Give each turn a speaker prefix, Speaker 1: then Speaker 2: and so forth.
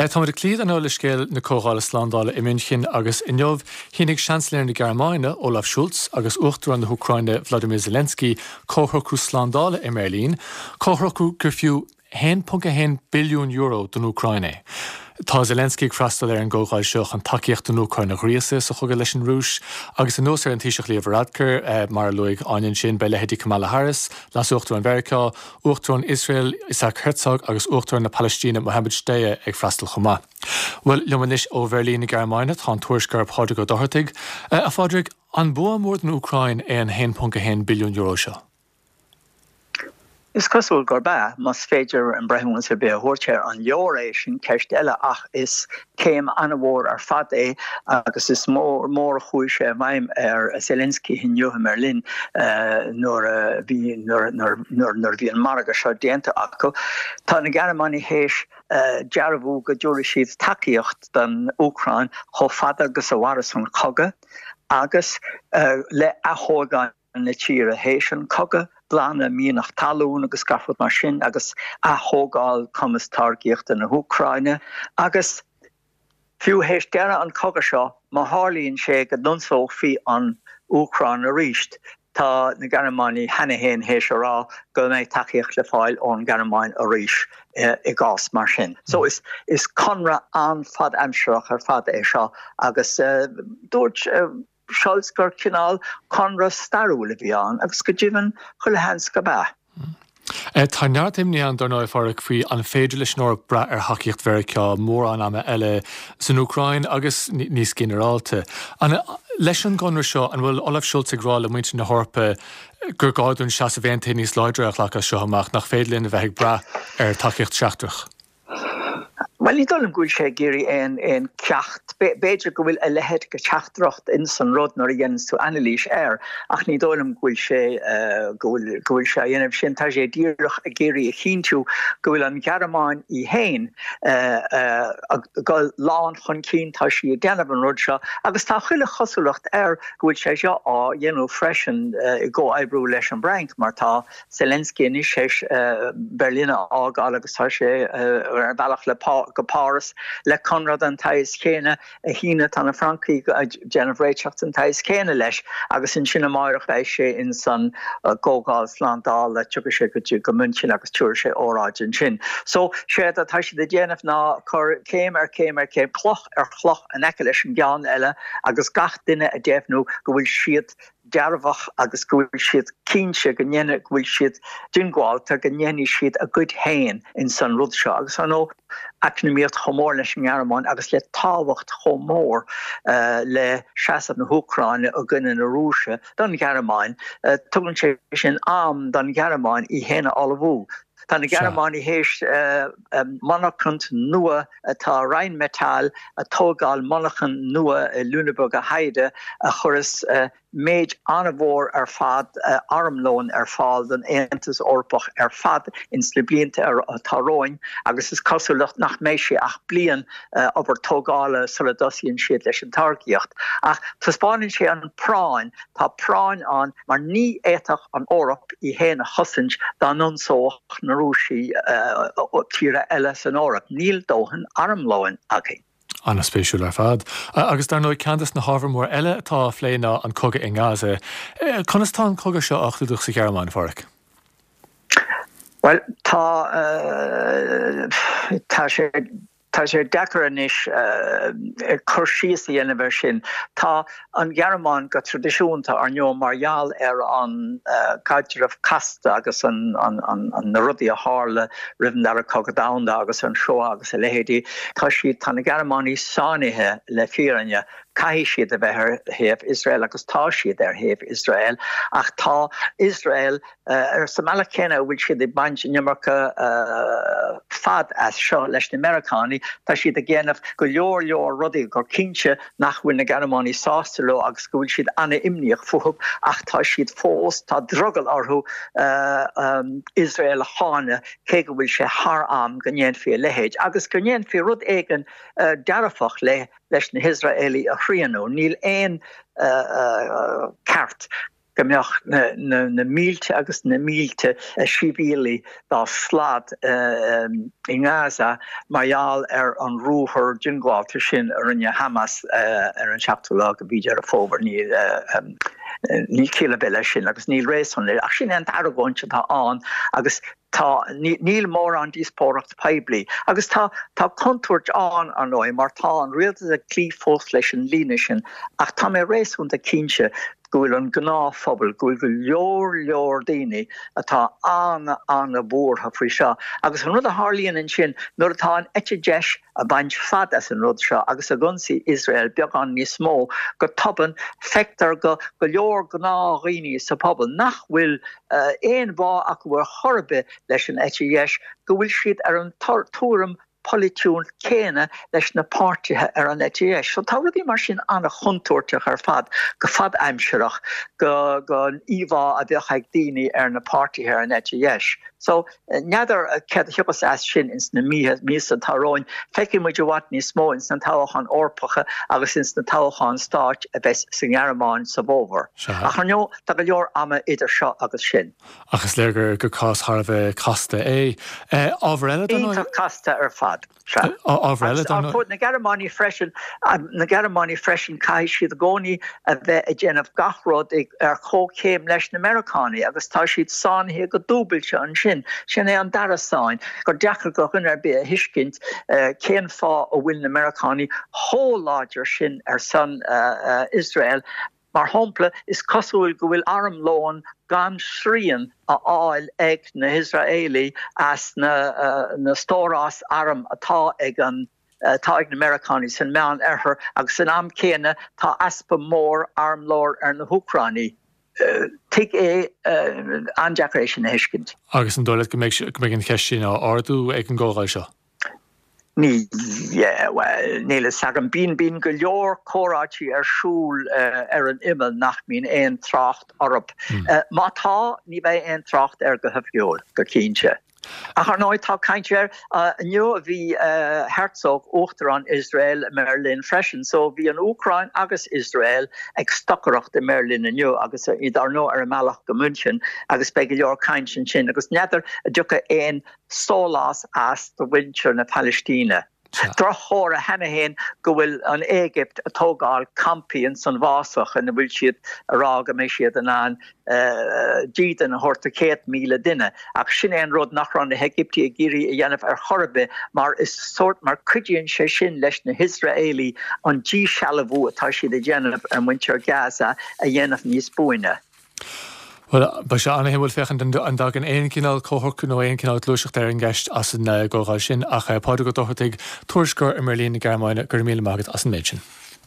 Speaker 1: Táimid ag cloí ar ndóigh le scéal na Comhdhála Slándála i München agus inniu shínigh Seansailéir na Gearmáine, Olaf Scholz, agus Uachtarán na hÚcráine, Vladimir Zelensky, comhshocrú slándála i mBeirlín, comhshocrú gur fiú €1.1 billiún don Úcráin é. Tá Zelensky ag freastal ar an gcomhdháil seo chun tacaíocht don Úcráin a ghríosadh sa chogadh leis an Rúis agus anuas ar an Taoiseach Leo Varadkar, mar a luaigh Áine ansin, beidh leithéidí Kamala Harris, Leas-Uachtarán Mheiriceá, Uachtarán Iosrael Isaac Herzog agus Uachtarán na Palaistíne Mohammed Shtayyeh ag freastal chomh maith. Bhuel, liom anois ó Bheirlín na Gearmáine tá an tuairisceoir Pádraig Ó Dochartaigh. A Phádraig, an bua mór don Úcráin é an €1.1 billiún seo?
Speaker 2: Is cosúil gurb ea, más féidir aon breithiúnas ar bith a thabhairt air. An leor é, sin ceist eile, ach is céim an-mhór ar fad é agus is mór mór a chuaigh sé i bhfeidhm ar Zelensky inniu i mBerlin nuair a bhí nuair nuair a bhí an margadh seo déanta acu. Tá na Gearmánaigh théis dearbhú go dtabharfaidh siad tacaíocht don Úcráin chomh fada agus a mhairfeas an cogadh agus le athógáil na tíre théis an cogadh, glanadh mianach talún agus gach rud mar sin agus ath-thógáil cumas táirgíochta na hÚcráine agus fiú théis deireadh an cogadh seo má tharlaíonn sé go n-ionsófaí an Úcráin arís tá na Gearmánaigh cheana féin théis a rá go mbeidh tacaíocht le fáil ón nGearmáin arís i gcás mar sin. So is is conradh an-fhad-aimsearach ar fad é seo agus dúirt Scholz gur cineál conradh stairiúil a bhí ann agus go deimhin chuile sheans gurb ea.
Speaker 1: Tá neart imní ann, dar ndóigh, a Phádraig, faoi an féidir leis an Eoraip brath ar thacaíocht Mheiriceá mórán ama eile san Úcráin agus níos ginearálta. Leis an gconradh seo, an bhfuil Olaf Scholz ag rá le muintir na hEorpa gur gá dúinn seasamh aontaithe níos láidre a ghlacadh as seo amach, nach féidir linn a bheith ag brath ar thacaíocht sheachtrach?
Speaker 2: Bhuel, ní dóigh liom go bhfuil sé ag iarraidh aon aon ceacht. B'fhéidir go bhfuil a leithéid de theachtaireacht ins an rud nuair a dhéananns tú anailís air, ach ní dóigh liom go bhfuil sé go bhfuil go bhfuil sé á dhéanamh sin. Tá sé díreach ag iarraidh a chinntiú go bhfuil an Ghearmáin í féin ag dul lán chun cinn, tá sí ag déanamh an rud seo agus tá chuile chosúlacht air go bhfuil sé seo á dhéanamh freisin i gcomhoibriú leis an bhFrainc mar tá Zelensky anois théis Berlin a fhágáil agus tá sé ar a bhealach le go Páras le conradh den tsaghas chéanna a shíneadh. Tá na Francaigh ag déanamh réiteach den tsaghas céanna leis agus ansin amáireach beidh sé ins an gComhdháil Slándála, tiocfaidh sé go dtí go München agus tabharfaidh sé óráid ansin. So, séard atá siad ag déanamh ná cur céim ar chéim ar chéim, cloch ar chloch in aice leis an gceann eile agus gach duine ag deimhniú go bhfuil siad dearfach agus go bhfuil siad cinnte go ndéanfaidh, go bhfuil siad diongbháilte go ndéanfaidh siad a gcuid féin ins an rud seo. Agus ar ndóigh, eacnamaíocht chomh mór leis an nGearmáin agus le tábhacht chomh mór le seasamh na hÚcráine i gcoinne na Rúise don Ghearmáin, tugann sé sin am don Ghearmáin í féin a ullmhú. Tá na Gearmánaigh théis monarchaint nua atá Rheinmetall ag tógáil monarchan nua i Lüneburger Heide a chuireas méid an-mhór ar fad armlóin ar fáil don Aontas Eorpach ar fad ins na blianta atá romhainn agus is cosúil nach mbeidh sé ach bliain obair tógála sula dtosaíonn siad leis an táirgíocht. Ach taispeánann sé an práinn Tá práinn ann mar ní fhéadfadh an Eoraip í féin a chosaint dá n-ionsódh na Rúisigh tíortha eile san Eoraip. Níl dóthain armlóin againn.
Speaker 1: An-spéisiúil ar fad. Agus dar ndóigh ceann des na hábhair mór eile atá á phlé ná an cogadh i nGaza. Conas tá an cogadh seo á chlúdach sa Ghearmáin, a Pháraic?
Speaker 2: Bhuel, tá, tá sé. Tá sé deacair anois cur síos a dhéanamh air sin. Tá an Ghearmáin go traidisiúnta, ar ndóigh, mar gheall ar an gcaidreamh casta agus na rudaí a tharla roimh an Dara Cogadh Domhanda agus an Shoah agus a leithéidí, tá siad, tá na Gearmánaigh sáinnithe le fírinne. Caithfidh siad a bheith ar thaobh Iosrael agus tá siad ar thaobh Iosrael ach tá Iosrael Ar sa mbealach céanna a bhfuil siad ag baint an iomarca fad as seo leis na Meiriceánaigh, tá siad ag déanamh go leor leor rudaí gur cinnte nach bhfuil na Gearmánaigh sásta leo agus go bhfuil siad an-imníoch fúthu ach tá siad fós, tá drogall orthu Iosrael a cháineadh cé go bhfuil sé thar am go ndéanfaí a leithéid agus go ndéanfaí rud éigin dearfach le leis na hIosraelaigh a shrianadh. Níl aon ceart. go mbeadh na mílte agus na mílte sibhialaigh dá slad i nGaza mar gheall ar an ruathar diongbháilte sin a rinne Hamas ar an seachtú lá de mhí Deireadh Fómhair. Níl ciall ar bith leis sin agus níl réasún leis, ach sin é an t-argóint atá ann agus tá, níl mórán díospóireacht poiblí. Agus tá, tá contúirt ann, ar ndóigh, mar tá an rialtas ag cloí fós leis an líne sin, ach tá mé réasúnta cinnte go bhfuil an gnáthphobal, go bhfuil go leor leor daoine atá an-an-bhuartha faoi seo. Agus an rud a tharlaíonn ansin, nuair atá an eite dheis ag baint fad as an rud seo agus ag ionsaí Iosrael beagán níos mó, go tobann feictear go go leor gnáthdhaoine sa phobal nach bhfuil aon bhá acu ar chor ar bith leis an eite dheis, go bhfuil siad ar an tuairim pholaitiúil céanna leis na páirtithe ar an eite dheis. So tá rudaí mar sin an-chontúirteach ar fad go fadaimsearach go don íomhá a bheadh ag daoine ar na páirtithe ar an eite dheis. So n'fheadar céard a thiocfas as sin ins na míosa atá romhainn. Feicfidh muid i bhfad níos mó ins na toghcháin Eorpacha agus ins na toghcháin stáit a bheas sa nGearmáin sa bhfómhar. Ach ar ndóigh tá go leor ama idir seo agus sin.
Speaker 1: Ach is léir gur cás thar a bheith casta é. Ábhar eile
Speaker 2: dar ndóigh. Iontach casta ar fad. Sea.
Speaker 1: Ábhar eile dar ndóigh.
Speaker 2: Na Gearmánaigh freisin, na Gearmánaigh freisin, caithfidh siad i gcónaí a bheith ag déanamh gach rud ar chomhchéim leis na Meiriceánaigh agus tá siad sáinnithe go dúbailte ansin. Sin é an dara sáinn, gur deacair do dhuine ar bith a thuiscint cén fáth a bhfuil na Meiriceánaigh chomh láidir sin ar son Iosrael. Mar shampla, is cosúil go bhfuil armlón gan srian á fháil ag na hIosraelaigh as na stóráis arm atá ag an atá ag na Meiriceánaigh san Meán Oirthear agus san am céanna tá easpa mór armlóir ar na hÚcránaigh. Tuig é, an-deacair é sin a thuiscint.
Speaker 1: Agus an dóigh leat go mbeidh an cheist sin á ardú ag an gcomhdháil seo?
Speaker 2: Ní, bhuel, níl fhios agam. Bíonn, bíonn go leor comhráití ar siúl ar an imeall nach mbíonn aon trácht orthu. Má tá, ní bheidh aon trácht air go hoifigiúil, go cinnte. Ach ar ndóigh, tá caint air. Inniu bhí Herzog, Uachtarán Iosrael, i mBeirlin freisin. So bhí an Úcráin agus Iosrael ag stocaireacht i mBeirlin inniu agus iad ar ndóigh ar a mbealach go München agus beidh go leor caint ansin agus n'fheadar an dtiocfaidh aon sólás as do mhuintir na Palaistíne. Droch-chomhartha cheana féin go bhfuil an Éigipt ag tógáil campaí ins an bhfásach ina bhfuil siad ag rá go mbeidh siad in ann dídean a thabhairt do 100,000 duine. Ach sin é an rud nach raibh na hÉigiptigh ag iarraidh a dhéanamh ar chor ar bith mar is sórt mar cuidíonn sé sin leis na hIosraelaigh an díshealbhú atá siad a dhéanamh ar mhuintir Gaza a dhéanamh níos buaine.
Speaker 1: Bhuel, beidh sé an-shuimiúil féachaint an dtagann aon chineál comhshocrú nó aon chineál gluaiseachta ar an gceist as an gcomhdháil sin. Ach Pádraig Ó Dochartaigh, tuairisceoir i mBeirlín na Gearmáine, go raibh míle maith agat as an méid sin.